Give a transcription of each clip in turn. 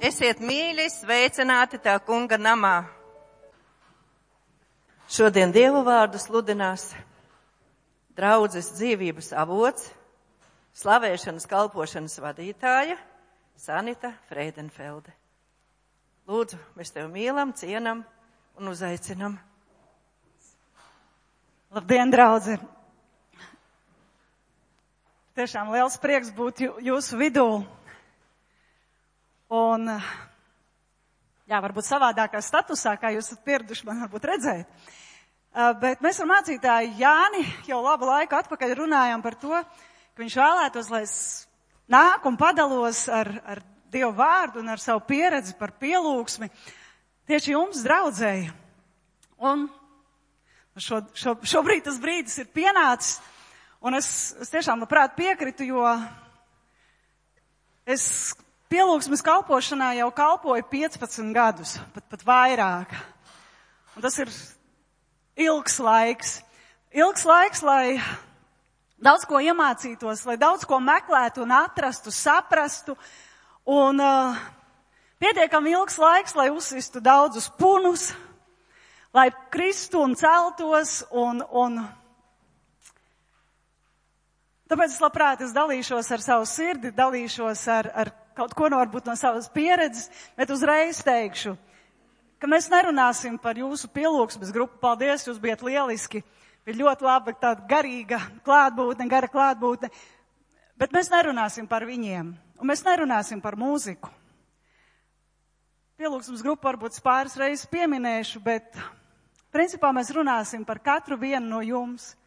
Esiet mīļi, sveicināti tā kunga namā. Šodien Dieva vārdu sludinās draudzes dzīvības avots, slavēšanas kalpošanas vadītāja Sanita Freidenfelde. Lūdzu, mēs tevi mīlam, cienam un uzaicinam. Labdien, draudzi! Tiešām liels prieks būt jūsu vidū. Un, varbūt savādākā statusā, kā jūs esat pieraduši man varbūt redzēt. Bet mēs ar mācītāju Jāni jau labu laiku atpakaļ runājām par to, ka viņš vēlētos, lai es nāku un padalos ar Dievu vārdu un ar savu pieredzi par pielūgsmi tieši jums, draudzēji. Un šobrīd tas brīdis ir pienācis, un es tiešām labprāt piekritu, jo es pielūgsmes kalpošanā jau kalpoju 15 gadus, pat vairāk. Un tas ir ilgs laiks. Ilgs laiks, lai daudz ko iemācītos, lai daudz ko meklētu un atrastu, saprastu. Un pietiekami ilgs laiks, lai uzsistu daudzus punus, lai kristu un celtos. Un tāpēc es labprāt dalīšos ar savu sirdi, dalīšos ar kaut ko varbūt no savas pieredzes, bet uzreiz teikšu, ka mēs nerunāsim par jūsu pielūgsmes grupu. Paldies, jūs bijat lieliski. Bija ļoti laba tāda garīga klātbūtne, gara klātbūtne. Bet mēs nerunāsim par viņiem. Un mēs nerunāsim par mūziku. Pielūgsmes grupu varbūt pāris reizes pieminēšu, bet principā mēs runāsim par katru vienu no jums.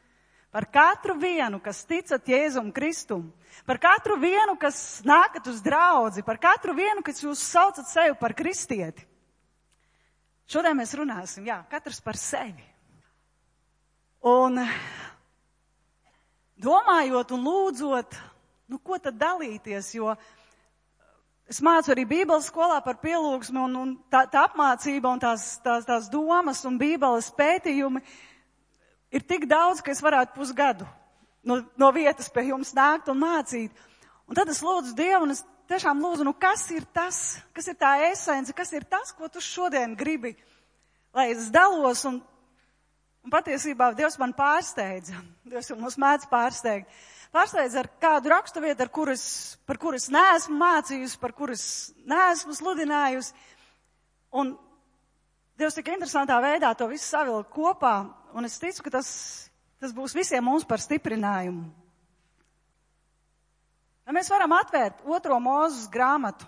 Par katru vienu, kas ticat Jēzum Kristum. Par katru vienu, kas nākat uz draudzi. Par katru vienu, kas jūs saucat sevi par kristieti. Šodien mēs runāsim, katrs par sevi. Un domājot un lūdzot, ko tad dalīties, jo es mācu arī Bībeles skolā par pielūgsmi un tā apmācība un tās domas un Bībeles pētījumi ir tik daudz, ka es varētu pusgadu no vietas pie jums nākt un mācīt. Un tad es lūdzu Dievu un es tiešām lūdzu, kas ir tas, kas ir tā esence, kas ir tas, ko tu šodien gribi, lai es dalos un patiesībā Dievs man pārsteidza. Dievs jau mums mēdz pārsteigt. Pārsteidz ar kādu raksturvietu, par kuru es neesmu mācījusi, par kuru es neesmu sludinājusi. Un Dievs tik interesantā veidā to visu savilka kopā, un es ticu, ka tas būs visiem mums par stiprinājumu. Ja mēs varam atvērt 2. Mūzes grāmatu,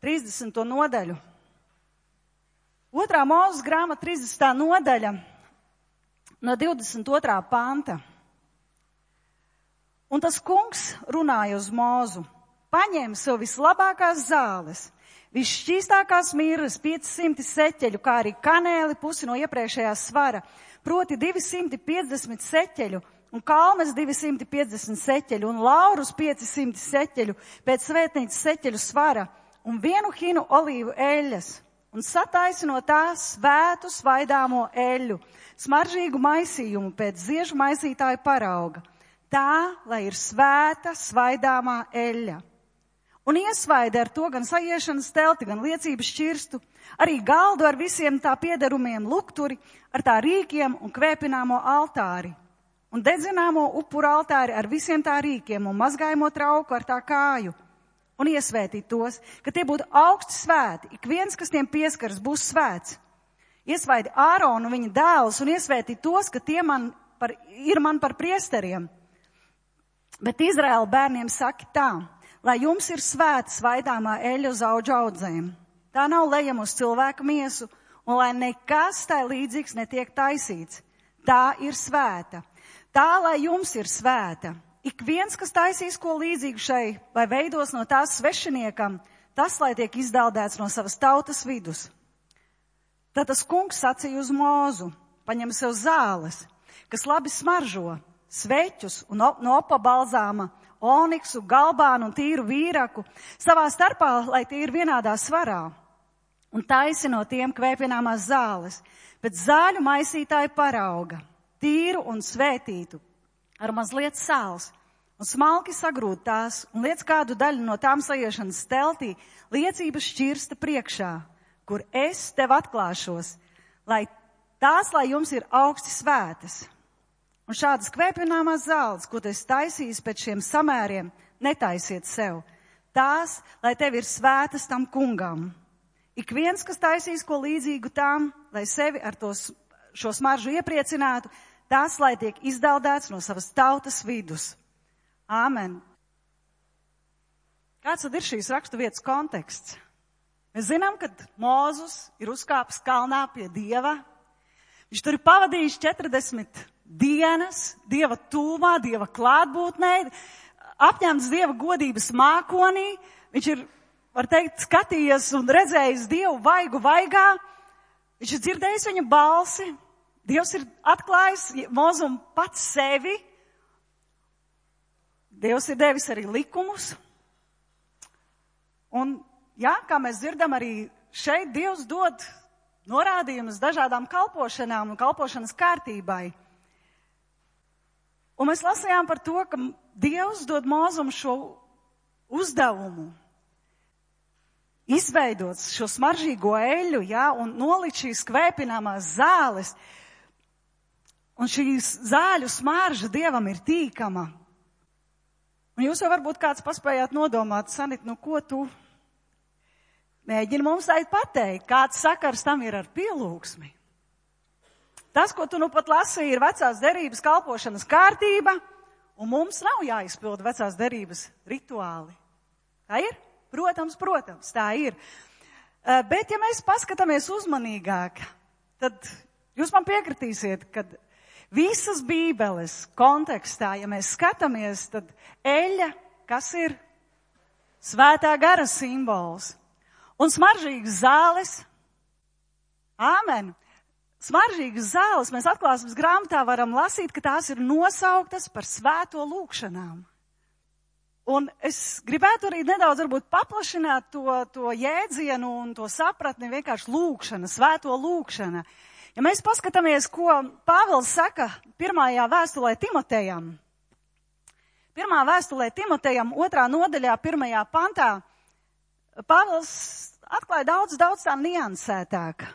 30. nodaļu. 2. Mūzes grāmata, 30. nodaļa, no 22. panta. Un tas kungs runāja uz Mūzu, paņēma sev vislabākās zāles, visšķīstākās mirras, 500 seķeļu, kā arī kanēli, pusi no iepriekšējā svara, proti 250 seķeļu, un kalmes 250 seķeļu, un laurus 500 seķeļu, pēc svētnīcas seķeļu svara, un 1 hinu olīvu eļļas, un sataisi no tās svētu svaidāmo eļļu, smaržīgu maisījumu pēc ziežu maisītāju parauga. Tā, lai ir svēta, svaidāmā eļļa. Un iesvaida ar to gan sajiešanas telti, gan liecības šķirstu, arī galdu ar visiem tā piederumiem, lukturi, ar tā rīkiem un kvēpināmo altāri, un dedzināmo upuru altāri ar visiem tā rīkiem un mazgājamo trauku ar tā kāju, un iesvētīt tos, ka tie būtu augsti svēti, ik viens, kas tiem pieskaras, būs svēts. Iesvaidi Āronu un viņa dēlus un iesvētīt tos, ka tie ir man par priesteriem. Bet Izraēla bērniem saka tā, lai jums ir svēta svaidāmā eļļa uz audžu audzēm. Tā nav lejama uz cilvēku miesu, un lai nekas tai līdzīgs netiek taisīts. Tā ir svēta. Tā, lai jums ir svēta. Ik viens, kas taisīs ko līdzīgu šai, vai veidos no tās svešiniekam, tas, lai tiek izdaldēts no savas tautas vidus. Tad tas kungs sacīja uz Mūzu, paņem sev zāles, kas labi smaržo, sveķus un no opa balzāma, oniksu, galbānu un tīru vīraku, savā starpā, lai tie ir vienādā svarā, un taisi no tiem kvēpināmās zāles, pēc zāļu maisītāju parauga, tīru un svētītu, ar mazliet sāls, un smalki sagrūd tās, un liec kādu daļu no tām saiešanas teltī, liecības šķirsta priekšā, kur es tev atklāšos, lai jums ir augsti svētas. Un šādas kvēpināmās zāles, ko tu esi taisījis pēc šiem samēriem, netaisiet sev. Tās, lai tev ir svētas tam kungam. Ik viens, kas taisīs ko līdzīgu tām, lai sevi ar šo smaržu iepriecinātu, tās, lai tiek izdaldēts no savas tautas vidus. Āmen. Kāds tad ir šīs raksturvietas konteksts? Mēs zinām, ka Mozus ir uzkāpis kalnā pie Dieva. Viņš tur ir pavadījis 40 dienas, Dieva tūmā, Dieva klātbūtnē, apņemts Dieva godības mākonī. Viņš ir, var teikt, skatījies un redzējis Dievu vaigu vaigā. Viņš ir dzirdējis viņa balsi. Dievs ir atklājis Mozum pats sevi. Dievs ir devis arī likumus. Un, jā, kā mēs dzirdam, arī šeit Dievs dod norādījumus dažādām kalpošanām un kalpošanas kārtībai. Un mēs lasījām par to, ka Dievs dod Mozum šo uzdevumu izveidot šo smaržīgo eļu, jā, un nolikt šīs kvēpināmās zāles. Un šīs zāļu smarža Dievam ir tīkama. Un jūs jau varbūt kāds paspējāt nodomāt, Sanit, ko tu mēģini mums teikt pateikt, kāds sakars tam ir ar pielūgsmi. Tas, ko tu nu pat lasīji, ir vecās derības kalpošanas kārtība, un mums nav jāizpilda vecās derības rituāli. Tā ir? Protams, tā ir. Bet, ja mēs paskatāmies uzmanīgāk, tad jūs man piekritīsiet, ka visas Bībeles kontekstā, ja mēs skatāmies, tad eļa, kas ir svētā gara simbols, un smaržīgas zāles, āmen, smaržīgas zāles mēs atklāsmes grāmatā varam lasīt, ka tās ir nosauktas par svēto lūgšanām. Un es gribētu arī nedaudz varbūt paplašināt to jēdzienu un to sapratni vienkārši lūgšana, svēto lūgšana. Ja mēs paskatāmies, ko Pāvils saka pirmajā vēstulē Timotejam. Pirmā vēstulē Timotejam, 2. nodaļā, 1. pantā, Pāvils atklāja daudz tā niansētāk.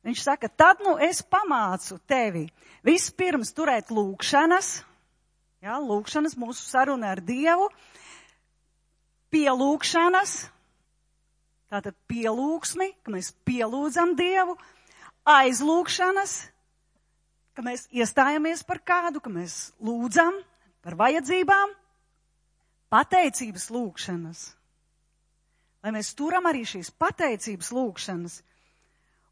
Viņš saka, tad es pamācu tevi vispirms turēt lūgšanas, jā, lūgšanas, mūsu saruna ar Dievu, pielūgšanas, tātad pielūgsmi, ka mēs pielūdzam Dievu, aizlūgšanas, ka mēs iestājamies par kādu, ka mēs lūdzam par vajadzībām, pateicības lūgšanas, lai mēs turam arī šīs pateicības lūgšanas.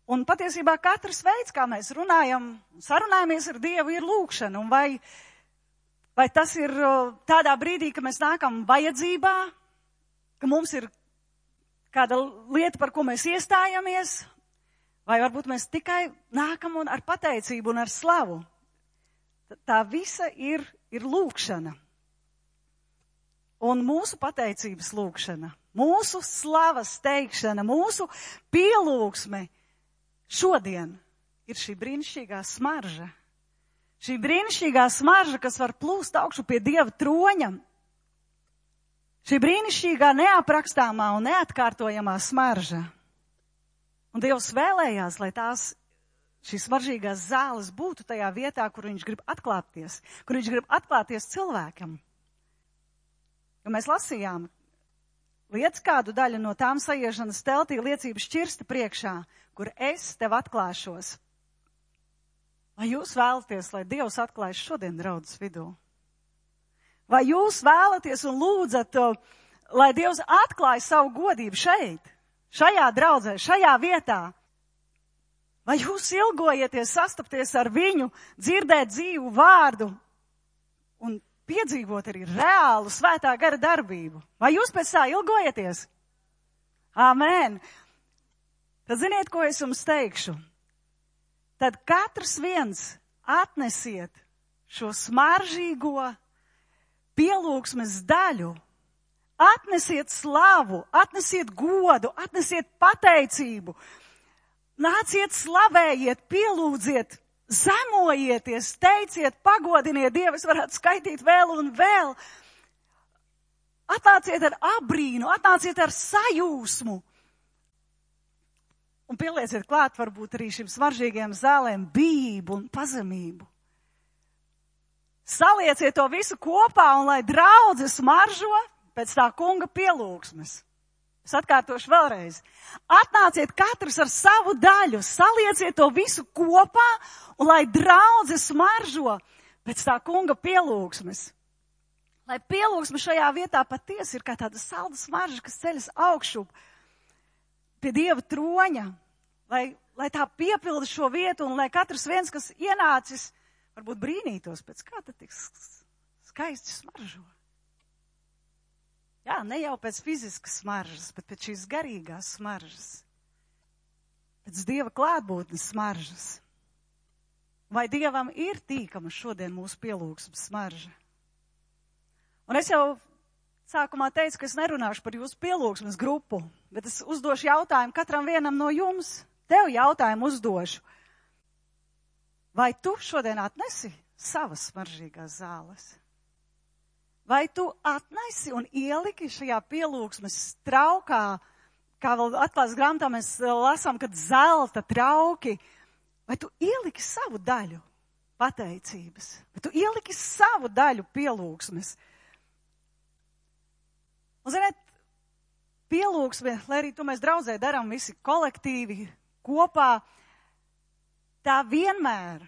Un patiesībā katrs veids, kā mēs runājam, sarunājamies ar Dievu, ir lūgšana. Un vai tas ir tādā brīdī, ka mēs nākam vajadzībā, ka mums ir kāda lieta, par ko mēs iestājamies, vai varbūt mēs tikai nākam un ar pateicību un ar slavu. Tā visa ir lūgšana. Un mūsu pateicības lūgšana, mūsu slavas teikšana, mūsu pielūgsme šodien ir šī brīnišķīgā smarža. Šī brīnišķīgā smarža, kas var plūst augšu pie Dieva troņa. Šī brīnišķīgā neaprakstāmā un neatkārtojamā smarža. Un Dievs vēlējās, lai šīs smaržīgās zāles būtu tajā vietā, kur viņš grib atklāties, kur viņš grib atklāties cilvēkam. Jo mēs lasījām, liec kādu daļu no tām saiešanas teltī liecības šķirsta priekšā, kur es tev atklāšos. Vai jūs vēlaties, lai Dievs atklājas šodien draudzes vidū? Vai jūs vēlaties un lūdzat, lai Dievs atklājas savu godību šeit, šajā draudzē, šajā vietā? Vai jūs ilgojieties sastapties ar viņu, dzirdēt dzīvu vārdu un piedzīvot arī reālu svētā gara darbību? Vai jūs pēc tā ilgojieties? Āmen! Tad ziniet, ko es jums teikšu? Tad katrs viens atnesiet šo smaržīgo pielūgsmes daļu, atnesiet slavu, atnesiet godu, atnesiet pateicību, nāciet slavējiet, pielūdziet zemojieties, teiciet, pagodiniet Dievu, es varētu skaitīt vēl un vēl. Atnāciet ar abrīnu, atnāciet ar sajūsmu. Un pielieciet klāt varbūt arī šim smaržīgiem zālēm bijību un pazemību. Salieciet to visu kopā un lai draudze smaržo pēc tā kunga pielūgsmes. Es atkārtošu vēlreiz. Atnāciet katrs ar savu daļu, salieciet to visu kopā un lai draudze smaržo pēc tā kunga pielūgsmes. Lai pielūgsme šajā vietā patiesi ir kā tāda salda smarža, kas ceļas augšu pie Dieva troņa, lai tā piepilda šo vietu un lai katrs viens, kas ienācis, varbūt brīnītos pēc kā tad tik skaisti smaržo. Jā, ne jau pēc fiziskas smaržas, bet pēc šīs garīgās smaržas. Pēc Dieva klātbūtnes smaržas. Vai Dievam ir tīkama šodien mūsu pielūgsmes smarža? Un es jau sākumā teicu, ka es nerunāšu par jūsu pielūgsmes grupu, bet es uzdošu jautājumu katram vienam no jums. Tev jautājumu uzdošu. Vai tu šodien atnesi savas smaržīgās zāles? Vai tu atnesi un ieliki šajā pielūgsmes traukā, kā vēl atklāts grāmatā mēs lasām, kad zelta trauki, vai tu ieliki savu daļu pateicības? Vai tu ieliki savu daļu pielūgsmes? Un, ziniet, pielūgsme, lai arī to mēs draudzē darām visi kolektīvi, kopā, tā vienmēr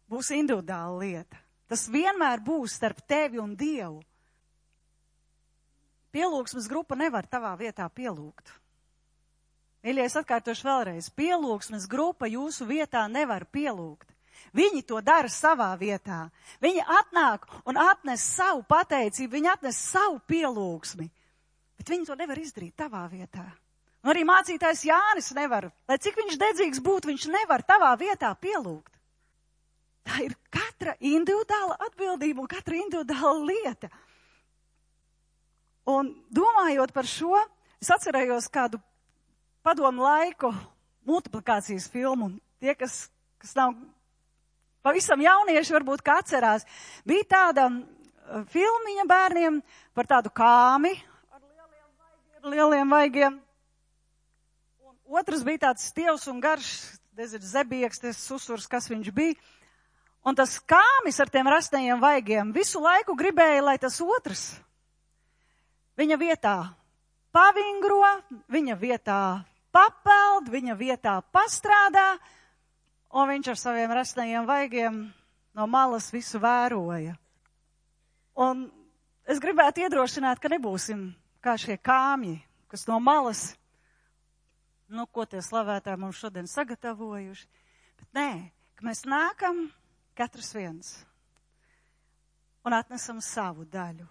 būs individuāla lieta. Tas vienmēr būs starp tevi un Dievu. Pielūgsmes grupa nevar tavā vietā pielūgt. Mīļie, es atkārtošu vēlreiz. Pielūgsmes grupa jūsu vietā nevar pielūgt. Viņi to dara savā vietā. Viņi atnāk un atnes savu pateicību, viņi atnes savu pielūgsmi. Bet viņi to nevar izdarīt tavā vietā. Un arī mācītājs Jānis nevar. Lai cik viņš dedzīgs būtu, viņš nevar tavā vietā pielūgt. Tā ir katra individuāla atbildība un katra individuāla lieta. Un domājot par šo, es atcerējos kādu padomu laiku multiplikācijas filmu. Tie, kas nav pavisam jaunieši, varbūt kā atcerās, bija tāda filmiņa bērniem par tādu kāmi ar lieliem vaigiem. Un otrs bija tāds stievs un garš, zebieks, tas susurs, kas viņš bija. Un tas kāmis ar tiem rastajiem vaigiem visu laiku gribēja, lai tas otrs viņa vietā pavingro, viņa vietā papeld, viņa vietā pastrādā, un viņš ar saviem rastajiem vaigiem no malas visu vēroja. Un es gribētu iedrošināt, ka nebūsim kā šie kāmji, kas no malas, ko tie slavētāji mums šodien sagatavojuši, bet nē, ka mēs nākam katrs viens un atnesam savu daļu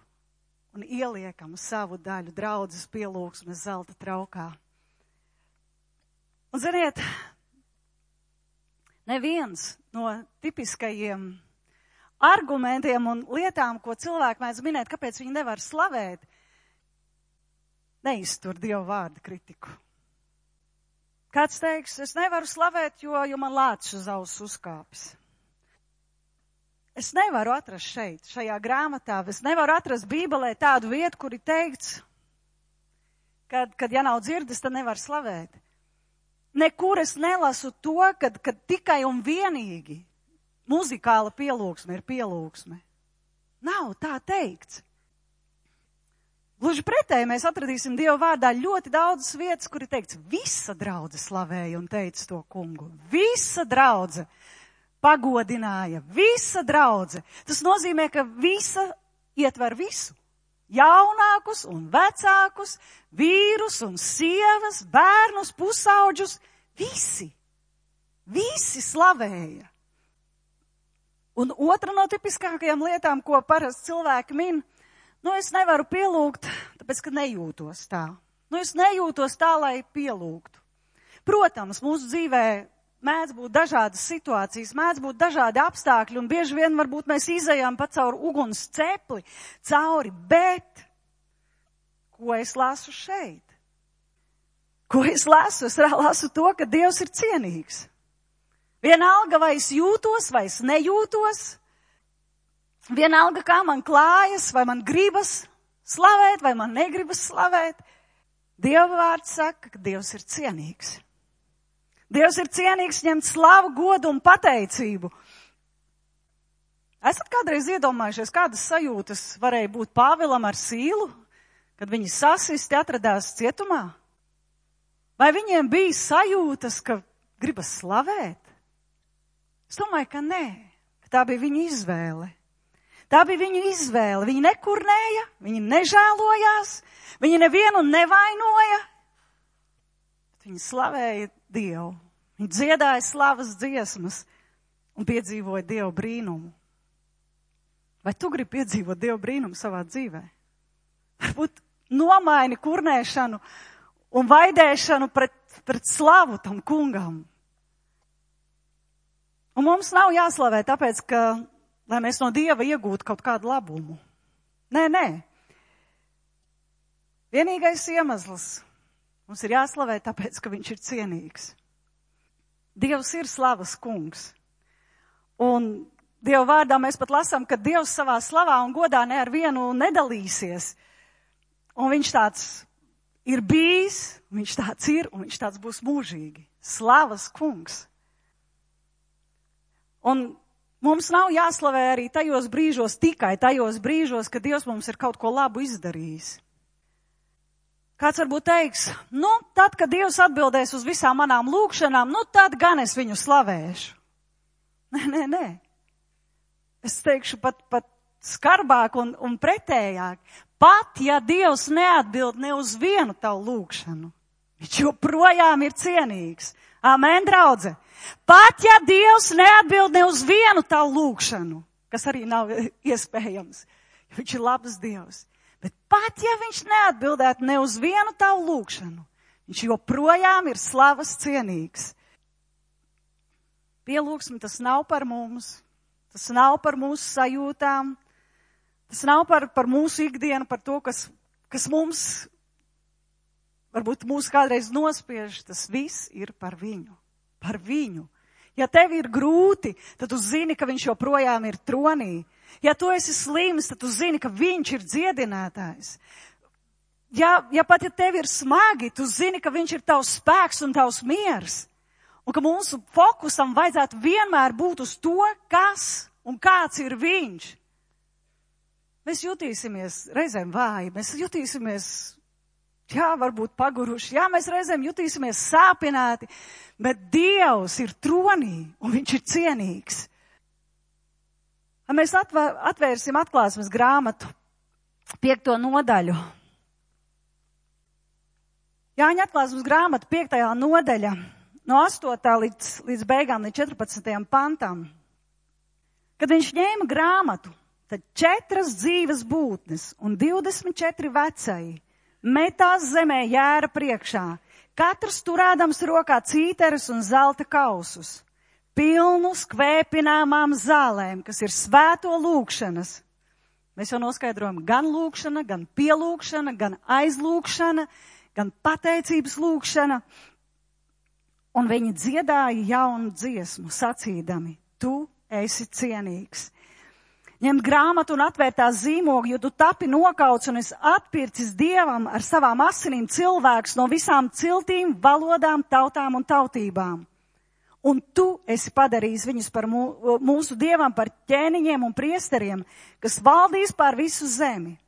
un ieliekam savu daļu draudzes pielūgsmes zelta traukā. Un ziniet, neviens no tipiskajiem argumentiem un lietām, ko cilvēki mēdz minēt, kāpēc viņi nevar slavēt, neiztur Dieva vārda kritiku. Kāds teiks, es nevaru slavēt, jo man lācis uz auss uzkāpis. Es nevaru atrast šajā grāmatā, es nevaru atrast Bībelē tādu vietu, kur ir teikts, kad ja nav dzirdes, tad nevar slavēt. Nekur es nelasu to, kad tikai un vienīgi muzikāla pielūgsme ir pielūgsme. Nav tā teikts. Gluži pretēji mēs atradīsim Dieva vārdā ļoti daudzas vietas, kur ir teikts, visa draudze slavēja un teica to kungu. Visa draudze pagodināja, visa draudze. Tas nozīmē, ka visa ietver visu. Jaunākus un vecākus, vīrus un sievas, bērnus, pusauģus, visi slavēja. Un otra no tipiskākajām lietām, ko parasti cilvēki min, es nevaru pielūgt, tāpēc, ka nejūtos tā. Es nejūtos tā, lai pielūgtu. Protams, mūsu dzīvē mēdz būt dažādas situācijas, mēdz būt dažādi apstākļi, un bieži vien varbūt mēs izejām pa cauri uguns cepli, bet ko es lasu šeit? Ko es lasu? Es lasu to, ka Dievs ir cienīgs. Vienalga, vai es jūtos, vai es nejūtos. Vienalga, kā man klājas, vai man gribas slavēt, vai man negribas slavēt. Dieva vārds saka, ka Dievs ir cienīgs. Dievs ir cienīgs ņemt slavu, godu un pateicību. Esat kādreiz iedomājušies, kādas sajūtas varēja būt Pāvilam ar Sīlu, kad viņi sasisti atradās cietumā? Vai viņiem bija sajūtas, ka gribas slavēt? Es domāju, ka nē, ka tā bija viņa izvēle. Tā bija viņu izvēle. Viņi nekurnēja, viņi nežēlojās, viņi nevienu nevainoja. Viņi slavēja Dievu. Viņi dziedāja slavas dziesmas un piedzīvoja Dievu brīnumu. Vai tu gribi piedzīvot Dievu brīnumu savā dzīvē? Varbūt nomaini kurnēšanu un vaidēšanu pret slavu tam kungam. Un mums nav jāslavē tāpēc, ka lai mēs no Dieva iegūtu kaut kādu labumu. Nē. Vienīgais iemesls mums ir jāslavē tāpēc, ka viņš ir cienīgs. Dievs ir slavas kungs. Un Dieva vārdā mēs pat lasām, ka Dievs savā slavā un godā ne ar vienu nedalīsies. Un viņš tāds ir bijis, viņš tāds ir un viņš tāds būs mūžīgi. Slavas kungs. Un mums nav jāslavē arī tajos brīžos, tikai tajos brīžos, kad Dievs mums ir kaut ko labu izdarījis. Kāds varbūt teiks, tad, kad Dievs atbildēs uz visām manām lūkšanām, tad gan es viņu slavēšu. Nē. Es teikšu pat skarbāk un pretējāk. Pat, ja Dievs neatbild ne uz vienu tavu lūkšanu, viņš joprojām ir cienīgs. Amen, draudze. Pat, ja Dievs neatbild ne uz vienu tavu lūkšanu, kas arī nav iespējams, jo viņš ir labs Dievs. Bet pat, ja viņš neatbildētu ne uz vienu tavu lūkšanu, viņš joprojām ir slavas cienīgs. Pielūgsme tas nav par mums, tas nav par mūsu sajūtām, tas nav par mūsu ikdienu, par to, kas mums, varbūt mūs kādreiz nospiež, tas viss ir par viņu. Par viņu. Ja tev ir grūti, tad tu zini, ka viņš joprojām ir tronī. Ja tu esi slims, tad tu zini, ka viņš ir dziedinātājs. Ja tev ir smagi, tu zini, ka viņš ir tavs spēks un tavs miers. Un ka mūsu fokusam vajadzētu vienmēr būt uz to, kas un kāds ir viņš. Mēs jutīsimies reizēm vāji, mēs jutīsimies, varbūt paguruši, mēs reizēm jutīsimies sāpināti, bet Dievs ir tronī un viņš ir cienīgs. Mēs atvērsim atklāsmes grāmatu 5. nodaļu. Jāņa atklāsmes grāmata 5. nodaļa no 8. līdz beigām, līdz 14. pantam. Kad viņš ņēma grāmatu, tad 4 dzīves būtnes un 24 vecai metās zemē jēra priekšā, katrs turādams rokā cīteres un zelta kausus, pilnus kvēpināmām zālēm, kas ir svēto lūkšanas. Mēs jau noskaidrojam gan lūkšana, gan pielūkšana, gan aizlūkšana, gan pateicības lūkšana. Un viņi dziedāja jaunu dziesmu, sacīdami, tu esi cienīgs. Ņemt grāmatu un atvērt tās zīmogu, jo tu tapi nokauts un esi atpircis Dievam ar savām asinīm cilvēks no visām ciltīm, valodām, tautām un tautībām. Un tu esi padarījis viņus par mūsu Dievam par ķēniņiem un priesteriem, kas valdīs pār visu zemi.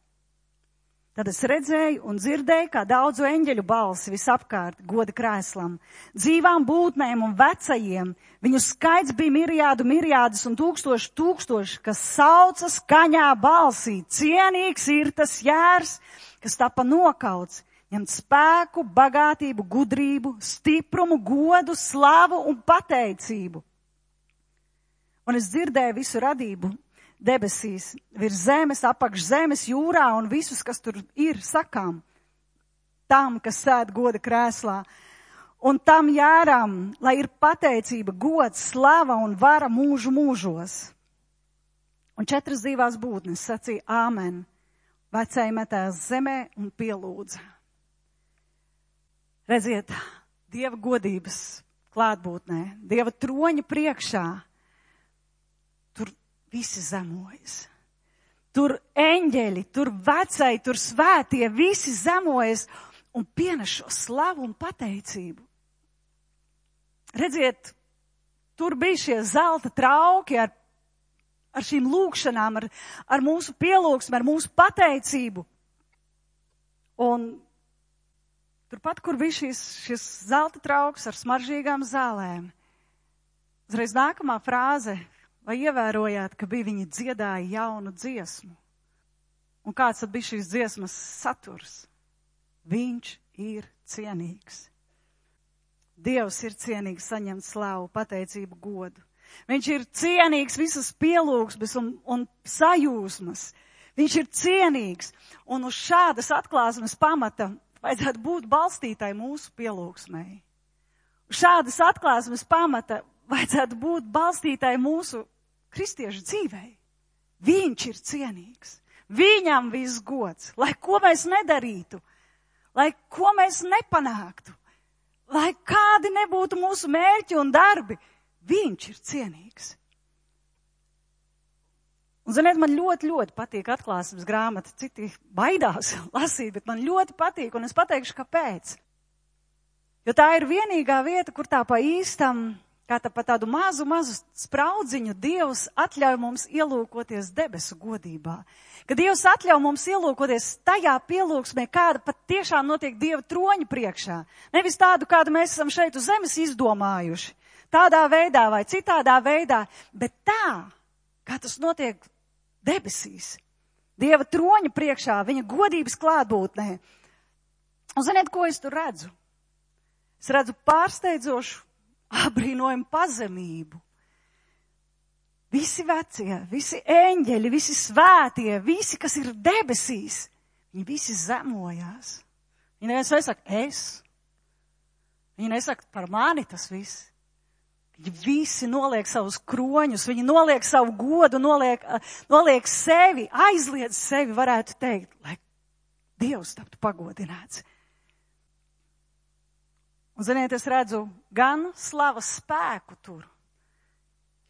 Tad es redzēju un dzirdēju, kā daudzu eņģeļu balsi visapkārt goda krēslam, dzīvām būtnēm un vecajiem. Viņu skaits bija mirijādus un tūkstoši, kas sauca skaņā balsī. Cienīgs ir tas jērs, kas tapa nokauts, ņemt spēku, bagātību, gudrību, stiprumu, godu, slavu un pateicību. Un es dzirdēju visu radību debesīs, virs zemes, apakš zemes, jūrā un visus, kas tur ir, sakām, tam, kas sēd goda krēslā. Un tam jēram, lai ir pateicība, gods, slava un vara mūžu mūžos. Un 4 dzīvās būtnes sacīja āmen, vecai metās zemē un pielūdza. Redziet, Dieva godības klātbūtnē, Dieva troņa priekšā, tur visi zemojas. Tur eņģeļi, tur vecai, tur svētie, visi zemojas un pienes šo slavu un pateicību. Redziet, tur bija šie zelta trauki ar šīm lūkšanām, ar mūsu pielūgsmi, ar mūsu pateicību. Un turpat, kur bija šis zelta trauks ar smaržīgām zālēm, uzreiz nākamā frāze, vai ievērojāt, ka bija viņi dziedāja jaunu dziesmu? Un kāds tad bija šīs dziesmas saturs? Viņš ir cienīgs. Dievs ir cienīgs saņemt slavu, pateicību, godu. Viņš ir cienīgs visas pielūgsmes un sajūsmas. Viņš ir cienīgs. Un uz šādas atklāsmes pamata vajadzētu būt balstītai mūsu pielūgsmei. Uz šādas atklāsmes pamata vajadzētu būt balstītai mūsu kristiešu dzīvei. Viņš ir cienīgs. Viņam viss gods. Lai ko mēs nedarītu, lai ko mēs nepanāktu, lai kādi nebūtu mūsu mērķi un darbi, viņš ir cienīgs. Un, ziniet, man ļoti, ļoti patīk atklāsmes grāmata. Citi baidās lasīt, bet man ļoti patīk, un es pateikšu, kāpēc. Jo tā ir vienīgā vieta, kur tā pa īstam, kā tā pa tādu mazu spraudziņu Dievs atļauj mums ielūkoties debesu godībā. Ka Dievs atļauj mums ielūkoties tajā pielūgsmē, kāda pat tiešām notiek Dieva troņa priekšā. Nevis tādu, kādu mēs esam šeit uz zemes izdomājuši. Tādā veidā vai citādā veidā, bet tā, kā tas notiek debesīs. Dieva troņa priekšā, viņa godības klātbūtnē. Un ziniet, ko es tur redzu? Es redzu pārsteidzošu, apbrīnojumu pazemību. Visi vecie, visi eņģeļi, visi svētie, visi, kas ir debesīs, viņi visi zemojās. Viņi nesaka, es. Viņi nesaka, par mani tas viss. Viņi visi noliek savus kroņus, viņi noliek savu godu, noliek sevi, aizliedz sevi, varētu teikt, lai Dievs taptu pagodināts. Un, ziniet, es redzu gan slavas spēku tur,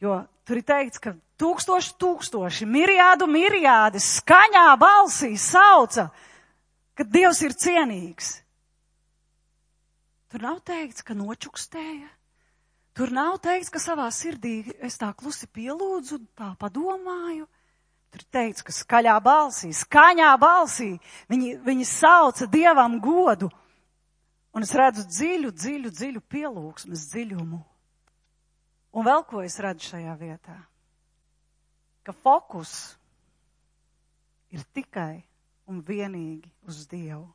jo tur ir teikts, ka tūkstoši, miriādi skaņā balsī sauca, ka Dievs ir cienīgs. Tur nav teikts, ka nočukstēja. Tur nav teikts, ka savā sirdī es tā klusi pielūdzu, tā padomāju. Tur teikts, ka skaņā balsī viņi sauca Dievam godu. Un es redzu dziļu pielūgsmes dziļumu. Un vēl ko es redzu šajā vietā? Ka fokus ir tikai un vienīgi uz Dievu.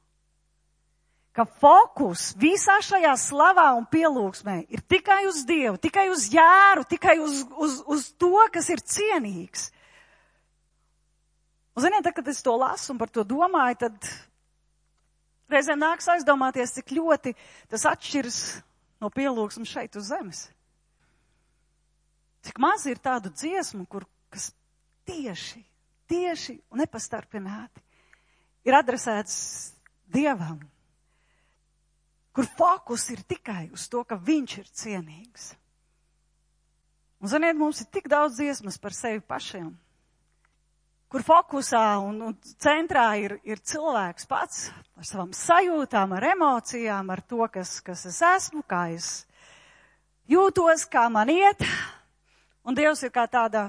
Ka fokus visā šajā slavā un pielūgsmē ir tikai uz Dievu, tikai uz Jāru, tikai uz to, kas ir cienīgs. Un ziniet, kad es to lasu un par to domāju, tad reizēm nāks aizdomāties, cik ļoti tas atšķiras no pielūgsmes šeit uz zemes. Cik maz ir tādu dziesmu, kas tieši un nepastarpināti ir adresēts Dievam, kur fokus ir tikai uz to, ka viņš ir cienīgs. Un, ziniet, mums ir tik daudz dziesmas par sevi pašiem, kur fokusā un centrā ir cilvēks pats ar savām sajūtām, ar emocijām, ar to, kas es esmu, kā es jūtos, kā man iet. Un Dievs ir kā tāda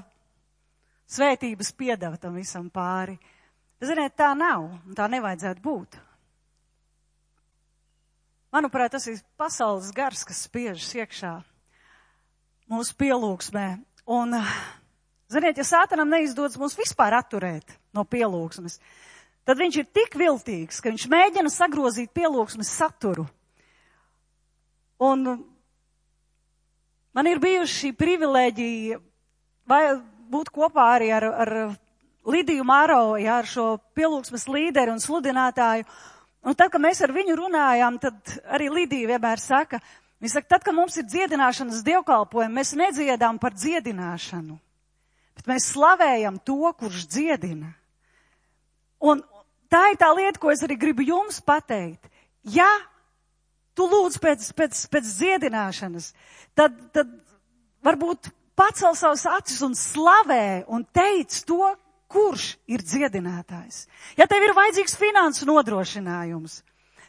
svētības piedeva tam visam pāri. Ziniet, tā nav, un tā nevajadzētu būt. Manuprāt, tas ir pasaules gars, kas spiežas iekšā mūsu pielūgsmē. Un, ziniet, ja Sātanam neizdodas mūs vispār atturēt no pielūgsmes, tad viņš ir tik viltīgs, ka viņš mēģina sagrozīt pielūgsmes saturu. Un man ir bijuši šī privilēģija būt kopā arī ar Lidiju Māro, ar šo pielūgsmes līderi un sludinātāju. Un tad, kad mēs ar viņu runājām, tad arī Lidija vienmēr saka, viņa saka, tad, kad mums ir dziedināšanas dievkalpojumi, mēs nedziedām par dziedināšanu, bet mēs slavējam to, kurš dziedina. Un tā ir tā lieta, ko es arī gribu jums pateikt. Ja tu lūdz pēc dziedināšanas, tad varbūt pacel savas acis un slavē un teic to, kurš ir dziedinātājs. Ja tev ir vajadzīgs finansu nodrošinājums,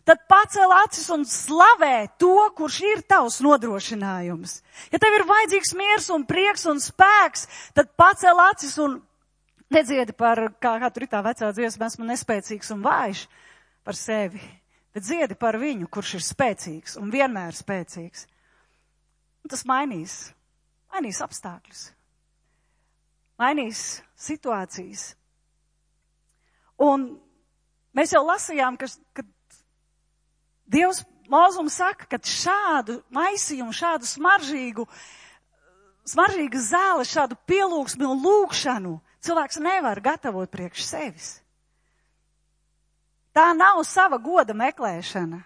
tad pacel acis un slavē to, kurš ir tavs nodrošinājums. Ja tev ir vajadzīgs miers un prieks un spēks, tad pacel acis un nedziedi par, kā tur ir tā vecā dziesma, esmu nespēcīgs un vājš par sevi, bet dziedi par viņu, kurš ir spēcīgs un vienmēr spēcīgs. Un tas mainīs apstākļus, mainīs situācijas. Un mēs jau lasījām, ka Dievs Mūzum saka, ka šādu maisījumu, šādu smaržīgu zāli, šādu pielūgsmi un lūgšanu cilvēks nevar gatavot priekš sevis. Tā nav sava goda meklēšana.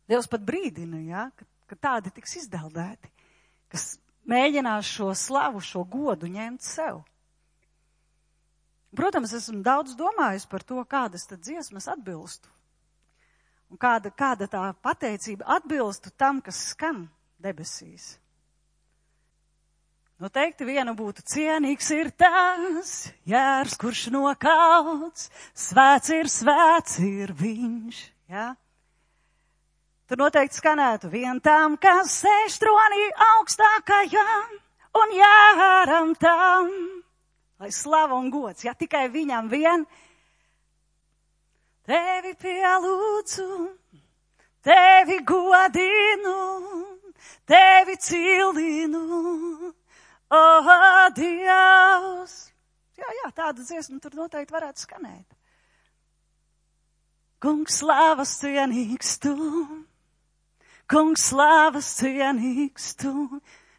Dievs pat brīdina, ja, ka tādi tiks izdeldēti, kas mēģinās šo slavu, šo godu ņemt sev. Protams, esmu daudz domājis par to, kādas tad dziesmas atbilstu. Un kāda tā pateicība atbilstu tam, kas skan debesīs. Noteikti viena būtu cienīgs ir tas jērs, kurš nokauts, svēts ir viņš, ja? Tur noteikti skanētu vien tam, kas sēž tronī augstākajam un jāram tam, lai slava un gods, ja tikai viņam vien. Tevi pielūdzu, tevi godinu, tevi cildinu, Dievs. Jā, tāda dziesma tur noteikti varētu skanēt. Kungs slavas cienīgs tu, kungs slavas cienīgs tu.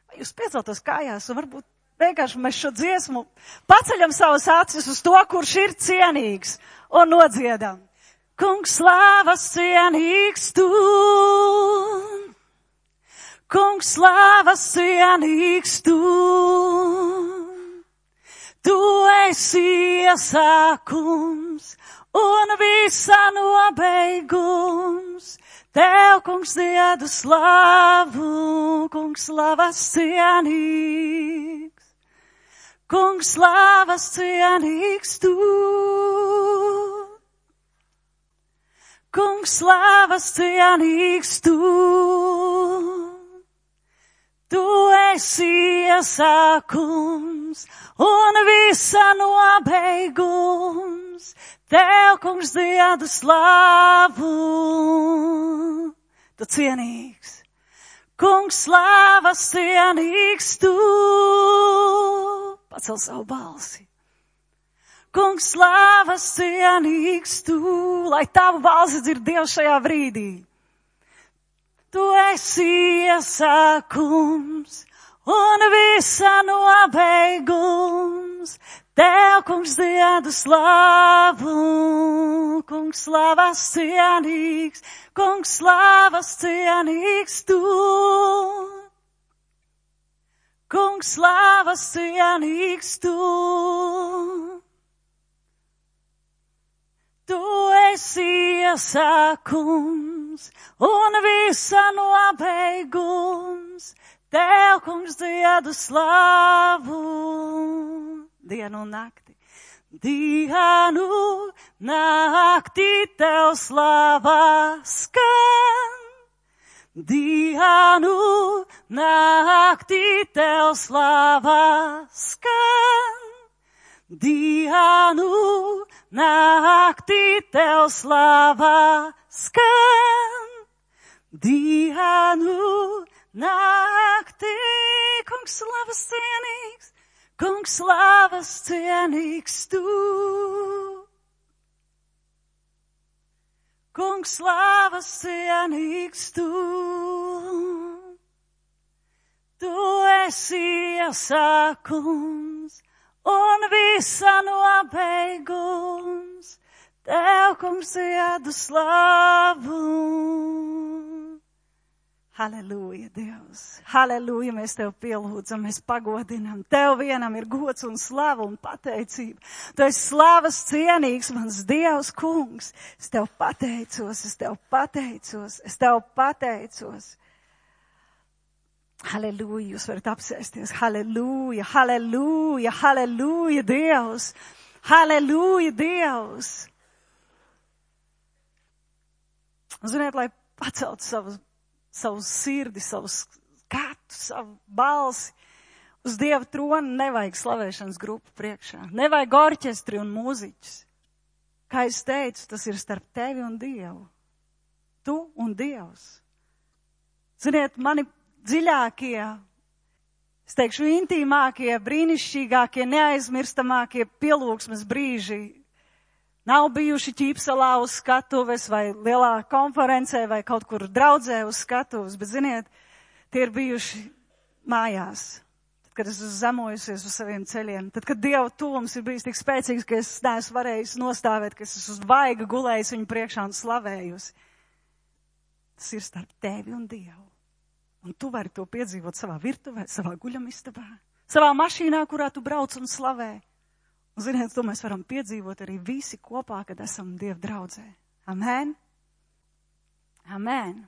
Vai jūs pieceltos kājās un varbūt vienkārši mēs šo dziesmu paceļam savas acis uz to, kurš ir cienīgs un nodziedam. Kungs slavas cienīgs tu, kungs slavas cienīgs tu. Tu esi iesākums un visa nobeigums. Tev, kungs, diedu slavu, kungs, slavas cienīgs. Kungs, slavas cienīgs tu. Kungs, slavas cienīgs tu. Tu esi iesākums un visa nobeigums. Tev, kungs, diedu slavu, tu cienīgs. Kungs, slavas cienīgs tu. Pacel savu balsi. Kungs, slavas cienīgs tu. Lai tavu balsi dzird Dievs šajā brīdī. Tu esi iesākums un visa nobeigums. Tev, kungs, diedu slavu, kungs, slavas cienīgs, kungs, slavas cienīgs tu. Kungs, slavas cienīgs tu. Tu esi iesākums un visa nobeigums. Tev, kungs, diedu slavu. Dienu un nakti. Dienu, nakti tev slava skan. Dienu, nakti tev slava skan. Dienu, nakti tev slava skan. Dienu, nakti, kungs, slavas cienīgs. Kungs, slavas cienīgs tu. Kungs, slavas cienīgs tu. Tu esi iesākums un visa nobeigums. Tev, kungs, diedu slavu. Halleluja, Dievs! Halleluja, mēs Tev pielūdzam, mēs pagodinam. Tev vienam ir gods un slava un pateicība. Tu esi slavas cienīgs, mans Dievs, kungs. Es Tev pateicos, es Tev pateicos, es Tev pateicos. Halleluja, jūs varat apsēsties. Halleluja, halleluja, halleluja, Dievs! Halleluja, Dievs! Un ziniet, lai pacelt savu sirdi, savu skatu, savu balsi, uz Dieva tronu nevajag slavēšanas grupu priekšā. Nevajag orķestri un mūziķus. Kā es teicu, tas ir starp tevi un Dievu. Tu un Dievs. Ziniet, mani dziļākie, es teikšu, intīmākie, brīnišķīgākie, neaizmirstamākie pielūgsmes brīži nav bijuši Ķīpsalā uz skatuves vai lielā konferencē vai kaut kur draudzē uz skatuves, bet, ziniet, tie ir bijuši mājās. Tad, kad es zemojusies uz saviem ceļiem, tad, kad Dieva tuvums ir bijis tik spēcīgs, ka es neesmu varējis nostāvēt, ka es esmu uz vaiga gulējis viņu priekšā un slavējusi. Tas ir starp tevi un Dievu. Un tu vari to piedzīvot savā virtuvē, savā guļamistabā, savā mašīnā, kurā tu brauc un slavē. Un, ziniet, to mēs varam piedzīvot arī visi kopā, kad esam Dieva draudzē. Amen? Amen.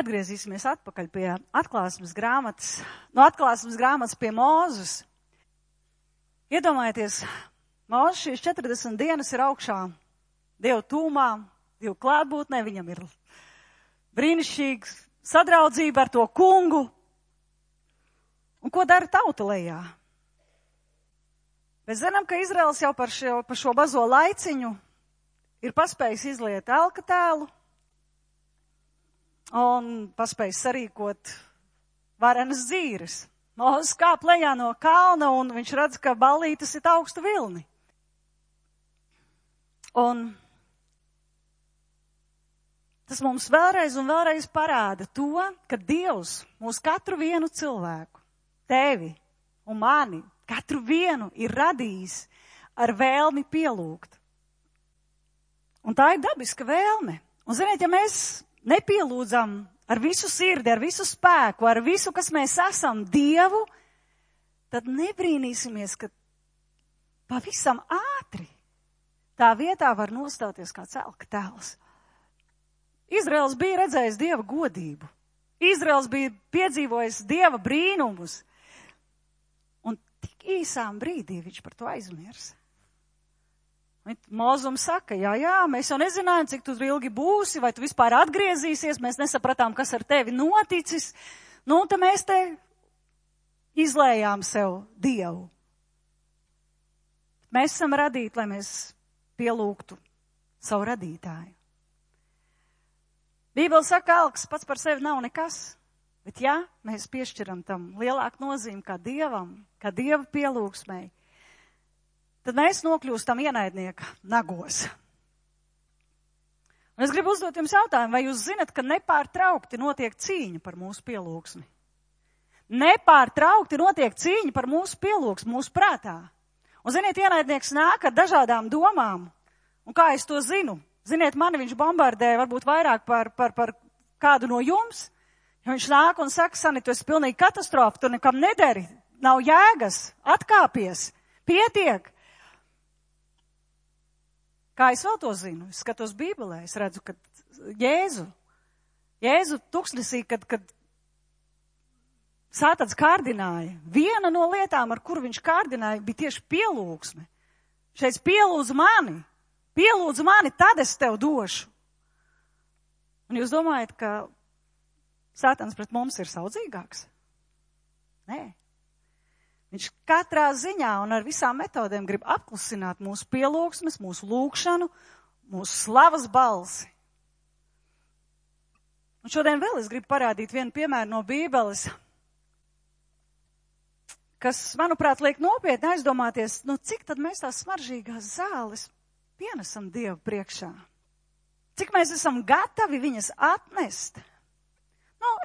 Atgriezīsimies atpakaļ pie atklāsmes grāmatas. No atklāsmes grāmatas pie Mūzes. Iedomājieties, Mūzes šīs 40 dienas ir augšā Dieva tūmā, Dieva klātbūtnē, viņam ir brīnišķīgs sadraudzība ar to kungu. Un ko dara tauta lejā? Mēs zinām, ka Izraels jau par šo bazo laiciņu ir paspējis izliet elka tēlu un paspējis sarīkot varenas dzīres. Mūzes kāp lejā no kalna un viņš redz, ka ballītes ir augstu vilni. Un tas mums vēlreiz un vēlreiz parāda to, ka Dievs mūs katru vienu cilvēku, tevi un mani, katru vienu ir radījis ar vēlmi pielūgt. Un tā ir dabiska vēlme. Un, ziniet, ja mēs nepielūdzam ar visu sirdi, ar visu spēku, ar visu, kas mēs esam, Dievu, tad nebrīnīsimies, ka pavisam ātri tā vietā var nostāties kāds elka tēls. Izraels bija redzējis Dieva godību. Izraels bija piedzīvojis Dieva brīnumus. Un tik īsām brīdī viņš par to aizmirsa. Mūzums saka, jā, mēs jau nezinājām, cik tu ilgi būsi, vai tu vispār atgriezīsies, mēs nesapratām, kas ar tevi noticis. Nu, un tad mēs te izlējām sev Dievu. Mēs esam radīti, lai mēs pielūgtu savu radītāju. Bībele saka, elks pats par sevi nav nekas, bet ja mēs piešķiram tam lielāku nozīmi kā Dievam, kā Dieva pielūgsmei, tad mēs nokļūstam ienaidnieka nagos. Un es gribu uzdot jums jautājumu, vai jūs zinat, ka nepārtraukti notiek cīņa par mūsu pielūgsmi? Nepārtraukti notiek cīņa par mūsu pielūgsmi, mūsu prātā. Un ziniet, ienaidnieks nāk ar dažādām domām. Un kā es to zinu? Ziniet, mani viņš bombardē varbūt vairāk par kādu no jums. Ja viņš nāk un saka, Sani, tu esi pilnīgi katastrofa, tu nekam nederi, nav jēgas, atkāpies, pietiek. Kā es vēl to zinu? Es skatos Bībelē, es redzu, ka Jēzu tuksnesī, kad Sātans kārdināja, viena no lietām, ar kuru viņš kārdināja, bija tieši pielūgsme. Šeit pielūdzu mani, tad es tev došu. Un jūs domājat, ka Sātans pret mums ir saudzīgāks? Nē. Viņš katrā ziņā un ar visām metodēm grib apklusināt mūsu pielūgsmes, mūsu lūgšanu, mūsu slavas balsi. Un šodien vēl es gribu parādīt vienu piemēru no Bībeles, kas, manuprāt, liek nopietni aizdomāties, cik tad mēs tās smaržīgās zāles pienesam Dievu priekšā. Cik mēs esam gatavi viņas atnest.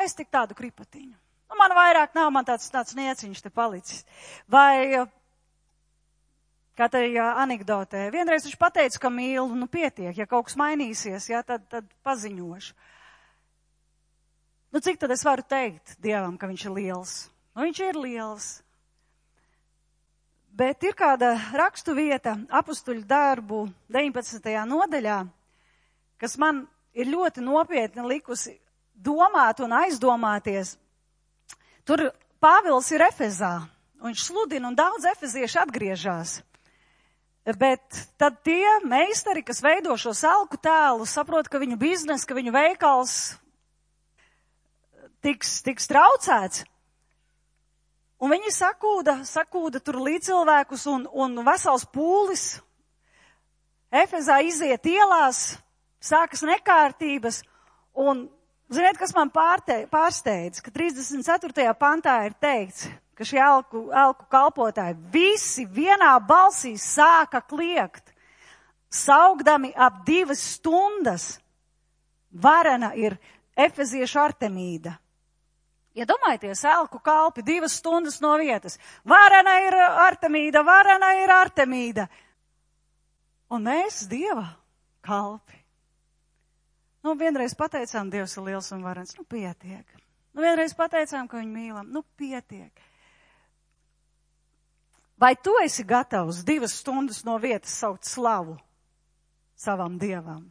Es tik tādu kripatiņu. Man vairāk nav, man tāds nieciņš te palicis. Vai, kā tajā anekdotē, vienreiz viņš pateica, ka mīlu, pietiek, ja kaut kas mainīsies, tad paziņošu. Nu, cik tad es varu teikt Dievam, ka viņš ir liels? Nu, viņš ir liels. Bet ir kāda rakstu vieta Apustuļu darbu 19. nodaļā, kas man ir ļoti nopietni likusi domāt un aizdomāties. Tur Pāvils ir Efezā, un viņš sludina, un daudz efezieši atgriežās. Bet tad tie meistari, kas veido šo salku tēlu, saprot, ka viņu biznes, ka viņu veikals tiks traucēts. Un viņi sakūda tur līdzcilvēkus un vesels pūlis. Efezā iziet ielās, sākas nekārtības. Un, ziniet, kas man pārsteidz, ka 34. pantā ir teikts, ka šie elku kalpotāji visi vienā balsī sāka kliegt, saugdami ap 2 stundas. Varena ir efeziešu Artemīda. Iedomājieties, elku kalpi 2 stundas no vietas. Varena ir Artemīda, varena ir Artemīda. Un mēs Dieva kalpi. Nu, vienreiz pateicām, Dievs ir liels un varens. Nu, pietiek. Nu, vienreiz pateicām, ka viņu mīlam. Nu, pietiek. Vai tu esi gatavs 2 stundas no vietas saukt slavu savam Dievam?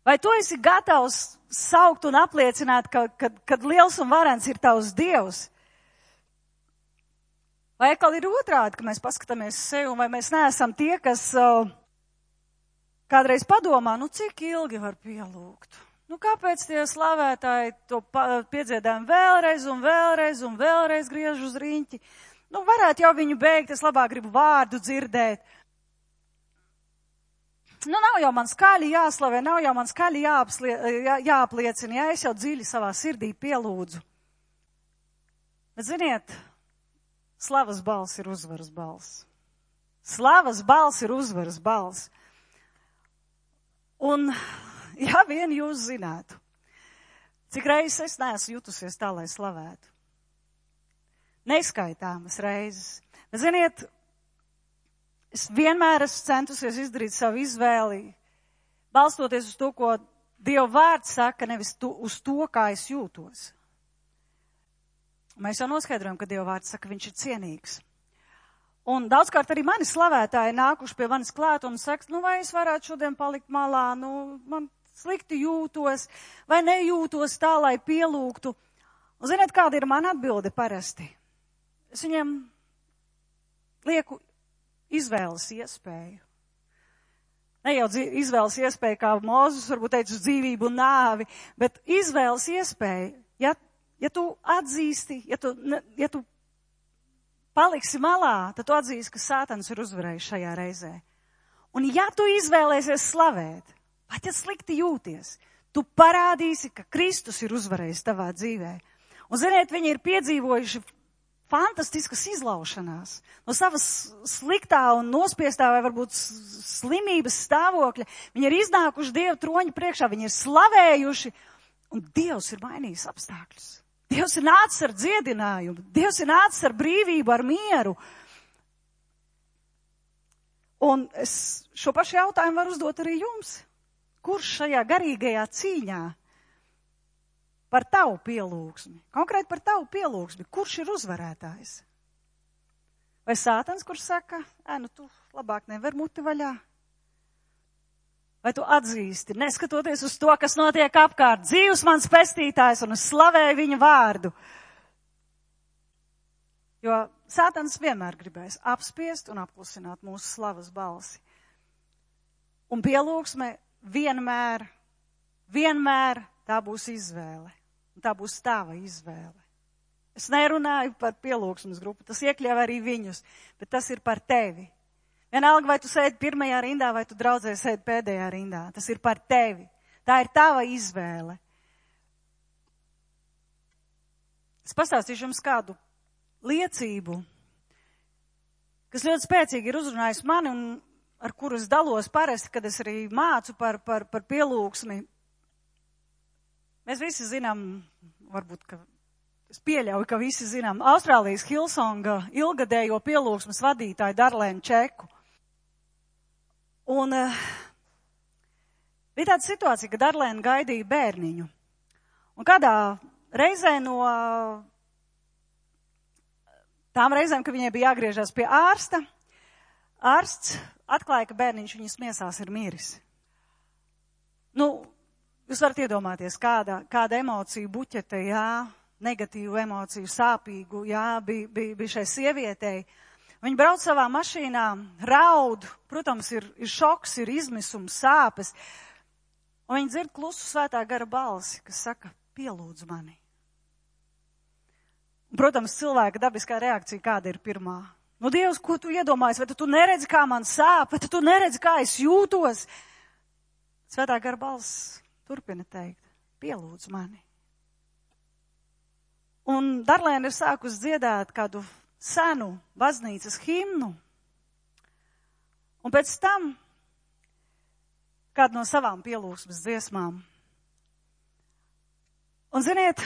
Vai tu esi gatavs saukt un apliecināt, kad liels un varens ir tavs Dievs? Vai atkal ir otrādi, ka mēs paskatāmies sevi, vai mēs neesam tie, kas kādreiz padomā, nu cik ilgi var pielūgt? Nu kāpēc tie slavētāji to piedziedājam vēlreiz un vēlreiz un vēlreiz griež uz riņķi? Nu varētu jau viņu beigt, es labāk gribu vārdu dzirdēt. Nu, nav jau man skaļi jāslavē, nav jau man skaļi jāapliecina, ja es jau dziļi savā sirdī pielūdzu. Bet ziniet, slavas balss ir uzvaras balss. Slavas balss ir uzvaras balss. Un, ja vien jūs zinātu, cik reizes es neesmu jutusies tā, lai slavētu. Neskaitāmas reizes. Bet ziniet, es vienmēr esmu centusies izdarīt savu izvēli, balstoties uz to, ko Dieva vārds saka, nevis uz to, kā es jūtos. Mēs jau noskaidrojam, ka Dieva vārds saka, viņš ir cienīgs. Un daudzkārt arī mani slavētāji nākuši pie manis klāt un saka, nu vai es varētu šodien palikt malā, nu man slikti jūtos, vai nejūtos tā, lai pielūgtu. Un ziniet, kāda ir mana atbilde parasti? Es viņiem lieku izvēles iespēju. Ne jau izvēles iespēju, kā Mozus varbūt teica, uz dzīvību un nāvi, bet izvēles iespēju. Ja tu atzīsti, ja tu paliksi malā, tad tu atzīsti, ka Sātans ir uzvarējis šajā reizē. Un ja tu izvēlēsies slavēt, pat ja slikti jūties, tu parādīsi, ka Kristus ir uzvarējis tavā dzīvē. Un ziniet, viņi ir piedzīvojuši fantastiskas izlaušanās no savas sliktā un nospiestā vai varbūt slimības stāvokļa. Viņi ir iznākuši Dieva troņa priekšā, viņi ir slavējuši, un Dievs ir mainījis apstākļus. Dievs ir nācis ar dziedinājumu, Dievs ir nācis ar brīvību, ar mieru. Un es šo pašu jautājumu varu uzdot arī jums. Kurš šajā garīgajā cīņā par tavu pielūgsmi, konkrēti par tavu pielūgsmi, kurš ir uzvarētājs? Vai Sātans, kurš saka, nu tu labāk nevar muti vaļā? Vai tu atzīsti, neskatoties uz to, kas notiek apkārt, dzīvs mans pestītājs un es slavēju viņa vārdu? Jo Sātans vienmēr gribēs apspiest un apklusināt mūsu slavas balsi. Un pielūgsme vienmēr tā būs izvēle. Un tā būs tava izvēle. Es nerunāju par pielūgsmes grupu, tas iekļauj arī viņus, bet tas ir par tevi. Vienalga, vai tu sēdi pirmajā rindā, vai tu draudzē sēdi pēdējā rindā. Tas ir par tevi. Tā ir tava izvēle. Es pastāstīšu jums kādu liecību, kas ļoti spēcīgi ir uzrunājis mani un ar kuru es dalos parasti, kad es arī mācu par pielūgsmi. Mēs visi zinām, varbūt, ka es pieļauju, ka visi zinām, Austrālijas Hillsonga ilgadējo pielūgsmes vadītāju Darlēnu Čeku. Un bija tāda situācija, ka Darlēna gaidīja bērniņu. Un kādā reizē no tām reizēm, kad viņai bija jāgriežas pie ārsta, ārsts atklāja, ka bērniņš viņas miesās ir miris. Jūs varat iedomāties, kāda emocija buķete, negatīvu emociju, sāpīgu, bija šai sievietei. Viņa brauc savā mašīnā, raud, protams, ir šoks, ir izmisums, sāpes. Un viņa dzird klusu svētā gara balsi, kas saka, pielūdz mani. Un, protams, cilvēka dabiskā reakcija kāda ir pirmā? Dievs, ko tu iedomājies? Vai tu neredzi, kā man sāp? Vai tu neredzi, kā es jūtos? Svētā gara balss turpina teikt, pielūdz mani. Un Darlēna ir sākus dziedāt kādu senu baznīcas himnu. Un pēc tam kādu no savām pielūgsmes dziesmām. Un ziniet,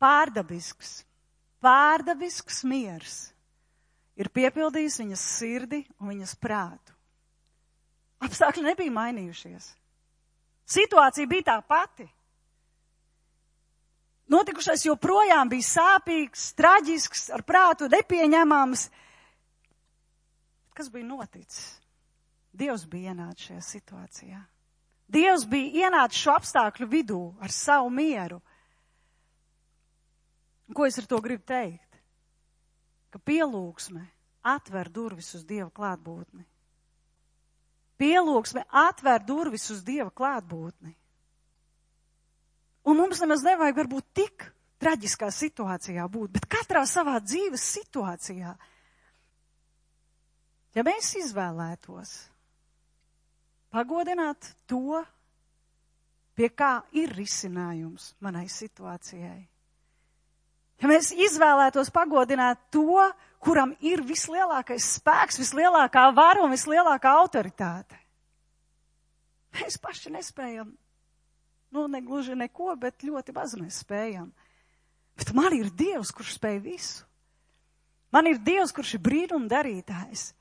pārdabisks miers ir piepildījis viņas sirdi un viņas prātu. Apstākļi nebija mainījušies. Situācija bija tā pati. Notikušais joprojām bija sāpīgs, traģisks, ar prātu nepieņemams. Kas bija noticis? Dievs bija ienācis šajā situācijā. Dievs bija ienācis šo apstākļu vidū ar savu mieru. Un ko es ar to gribu teikt? Ka pielūgsme atver durvis uz Dieva klātbūtni. Pielūgsme atver durvis uz Dieva klātbūtni. Un mums nemaz nevajag varbūt tik traģiskā situācijā būt, bet katrā savā dzīves situācijā. Ja mēs izvēlētos pagodināt to, pie kā ir risinājums manai situācijai. Ja mēs izvēlētos pagodināt to, kuram ir vislielākais spēks, vislielākā vara un vislielākā autoritāte. Mēs paši nespējam, negluži neko, bet ļoti maz mēs spējam. Bet man ir Dievs, kurš spēj visu. Man ir Dievs, kurš ir brīnuma darītājs.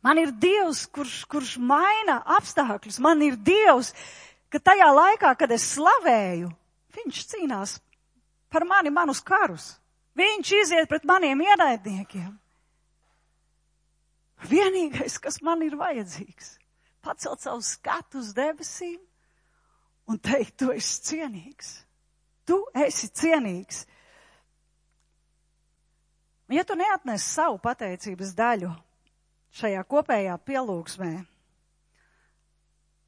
Man ir Dievs, kurš maina apstākļus. Man ir Dievs, ka tajā laikā, kad es slavēju, viņš cīnās par mani, manus karus. Viņš iziet pret maniem ienaidniekiem. Vienīgais, kas man ir vajadzīgs, pacelt savu skatu uz debesīm un teikt, tu esi cienīgs. Tu esi cienīgs. Un ja tu neatnes savu pateicības daļu šajā kopējā pielūgsmē,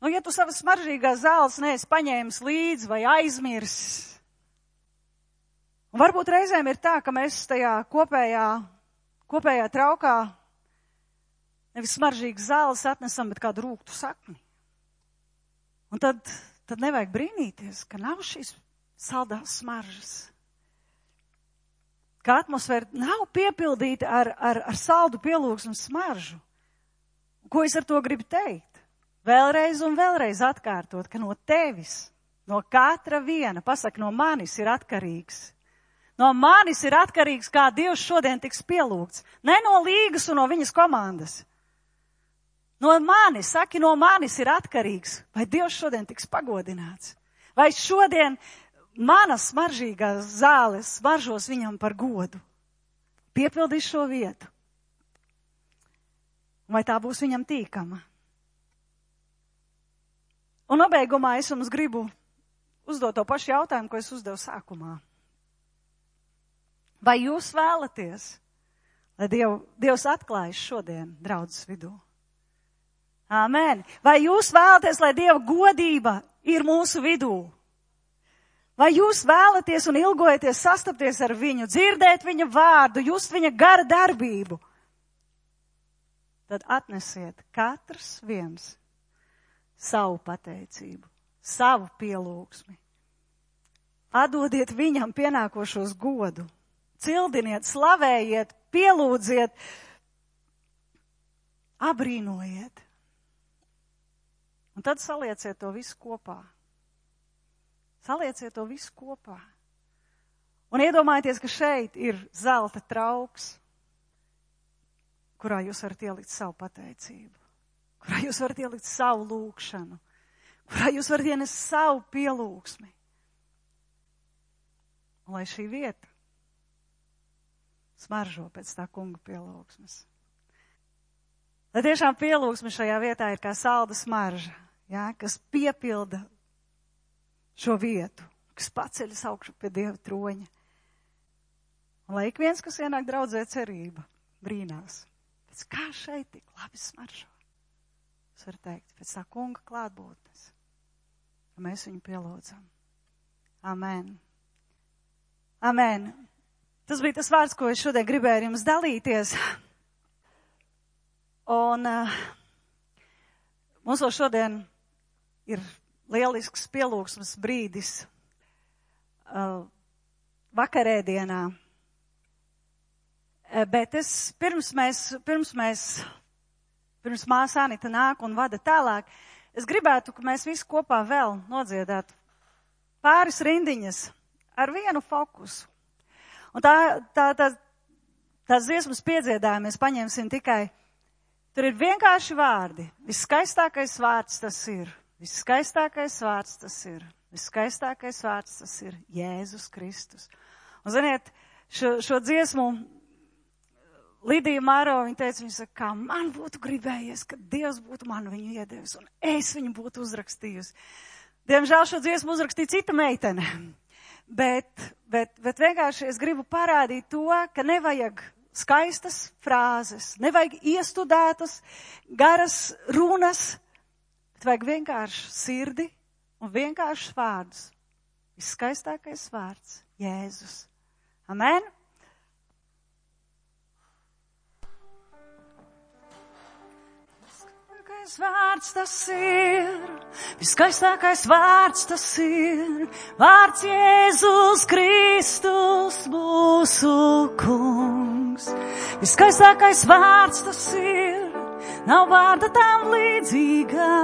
ja tu savas smaržīgās zāles neesi paņēmis līdzi vai aizmirsis, un varbūt reizēm ir tā, ka mēs tajā kopējā traukā nevis smaržīgas zāles atnesam, bet kādu rūgtu sakni. Un tad nevajag brīnīties, ka nav šīs saldās smaržas. Ka atmosfēra nav piepildīta ar saldu pielūgsmu smaržu. Ko es ar to gribu teikt? Vēlreiz un vēlreiz atkārtot, ka no tevis, no katra viena, pasaka, no manis ir atkarīgs. No manis ir atkarīgs, kā Dievs šodien tiks pielūgts. Ne no Līgas un no viņas komandas. No manis ir atkarīgs, vai Dievs šodien tiks pagodināts. Vai šodien manas smaržīgās zāles smaržos viņam par godu. Piepildīs šo vietu. Vai tā būs viņam tīkama? Un nobeigumā es jums gribu uzdot to pašu jautājumu, ko es uzdevu sākumā. Vai jūs vēlaties, lai Dievs atklājas šodien draudzes vidū? Āmen. Vai jūs vēlaties, lai Dieva godība ir mūsu vidū? Vai jūs vēlaties un ilgojaties sastapties ar viņu, dzirdēt viņa vārdu, just viņa gara darbību? Tad atnesiet katrs viens savu pateicību, savu pielūgsmi. Atdodiet viņam pienākošos godu. Cildiniet, slavējiet, pielūdziet, abrīnojiet. Un tad salieciet to visu kopā. Salieciet to visu kopā. Un iedomājieties, ka šeit ir zelta trauks, kurā jūs varat ielikt savu pateicību, kurā jūs varat ielikt savu lūgšanu, kurā jūs varat ienest savu pielūgsmi. Un lai šī vieta smaržo pēc tā kunga pielūgsmes. Lai tiešām pielūgsme šajā vietā ir kā salda smarža, ja, kas piepilda šo vietu, kas paceļas augšu pie Dieva troņa. Un lai ik viens, kas ienāk draudzē cerība, brīnās, pēc kā šeit tik labi smaržo. Es varu teikt, pēc tā kunga klātbūtnes, ka mēs viņu pielūdzam. Amen. Amen. Tas bija tas vārds, ko es šodien gribēju ar jums dalīties. Un mums vēl šodien ir lielisks pielūgsmes brīdis vakarēdienā. Bet pirms māsa Anita nāk un vada tālāk, es gribētu, ka mēs visi kopā vēl nodziedātu pāris rindiņas ar vienu fokusu. Un tās dziesmas piedziedājumu mēs paņemsim tikai, tur ir vienkārši vārdi. Viskaistākais vārds tas ir. Viskaistākais vārds tas ir. Viskaistākais vārds tas ir Jēzus Kristus. Un ziniet, šo dziesmu Lidija Māro, viņa teica, viņa saka, kā man būtu gribējies, ka Dievs būtu man viņu iedevis un es viņu būtu uzrakstījusi. Diemžēl šo dziesmu uzrakstīja cita meitene. Bet vienkārši es gribu parādīt to, ka nevajag skaistas frāzes, nevajag iestudētas, garas runas, bet vajag vienkārši sirdi un vienkārši vārdus. Viskaistākais vārds - Jēzus. Amen? Vārds tas ir, viskaistākais vārds tas ir, vārds Jēzus Kristus mūsu kungs. Viskaistākais vārds tas ir, nav vārda tam līdzīgā.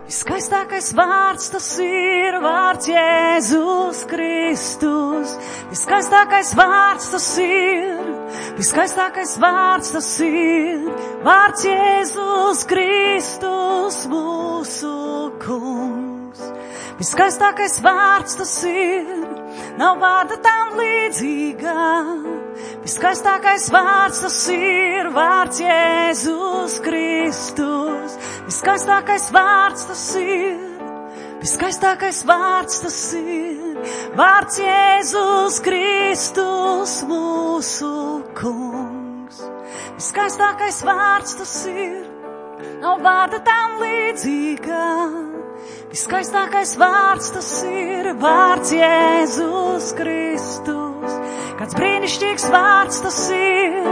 Viskaistākais vārds tas ir, vārds Jēzus Kristus. Viskaistākais vārds tas ir, viskaistākais vārds tas ir, vārds Jēzus Kristus mūsu kungs. Viskaistākais vārds tas ir, nav vārda tam līdzīgā. Viskaistākais vārds tas ir, vārds Jēzus Kristus. Viskaistākais vārds tas ir, viskaistākais vārds tas ir, vārds Jēzus Kristus mūsu kungs. Viskaistākais vārds tas ir, nav vārda tam līdzīgā. Viskaistākais vārds tas ir, vārds Jēzus Kristus. Kāds brīnišķīgs vārds tas ir,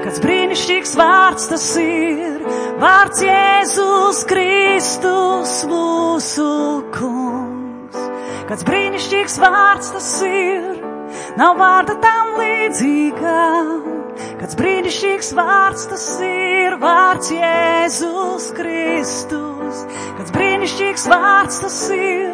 kāds brīnišķīgs vārds tas ir, vārds Jēzus Kristus mūsu kungs. Kāds brīnišķīgs vārds tas ir, nav vārda tam līdzīgā. Kāds brīnišķīgs vārds tas ir, vārds Jēzus Kristus. Kāds brīnišķīgs vārds tas ir,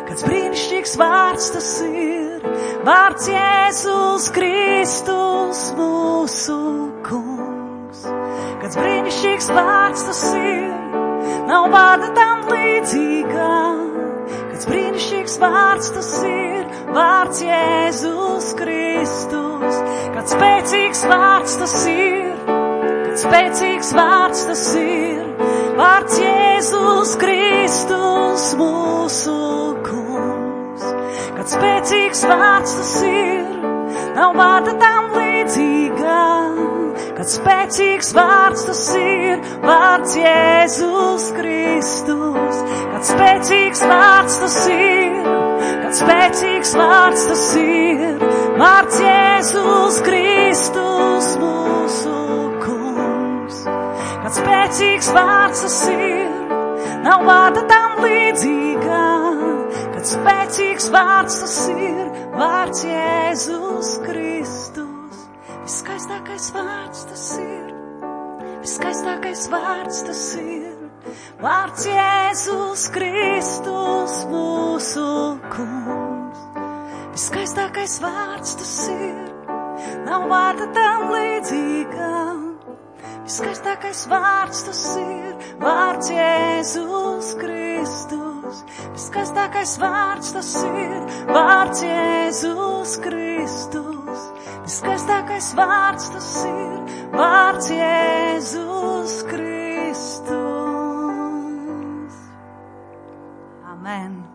kāds brīnišķīgs vārds tas ir, vārds Jēzus Kristus mūsu kungs. Kāds brīnišķīgs vārds tas ir, nav vārda tam līdzīgā. Kāds brīnišķīgs vārds tas ir, vārds Jēzus Kristus. Kāds spēcīgs vārds tas ir, kāds spēcīgs vārds tas ir, vārds Jēzus Kristus mūsu kungs. Kāds spēcīgs vārds tas ir, nav vārda tam līdzīgā. Kāds spēcīgs vārds tas ir, vārds Jēzus Kristus. Kāds spēcīgs vārds tas ir, kāds spēcīgs vārds tas ir, vārds Jēzus Kristus mūsu kungs. Kāds spēcīgs vārds tas ir, nav vārda tam līdzīgā. Kāds spēcīgs vārds tas ir, vārds Jēzus Kristus. Viskaistākais vārds tas ir, viskaistākais vārds tas ir, vārds Jēzus Kristus mūsu kungs. Viskaistākais vārds tas ir, nav vārda tam līdzīgā. Viskaistākais vārds tas ir, vārds Jēzus Kristus. Viskaistākais vārds tas ir, vārds Jēzus Kristus. Viskaistākais vārds tas ir, vārds Jēzus Kristus. Amen.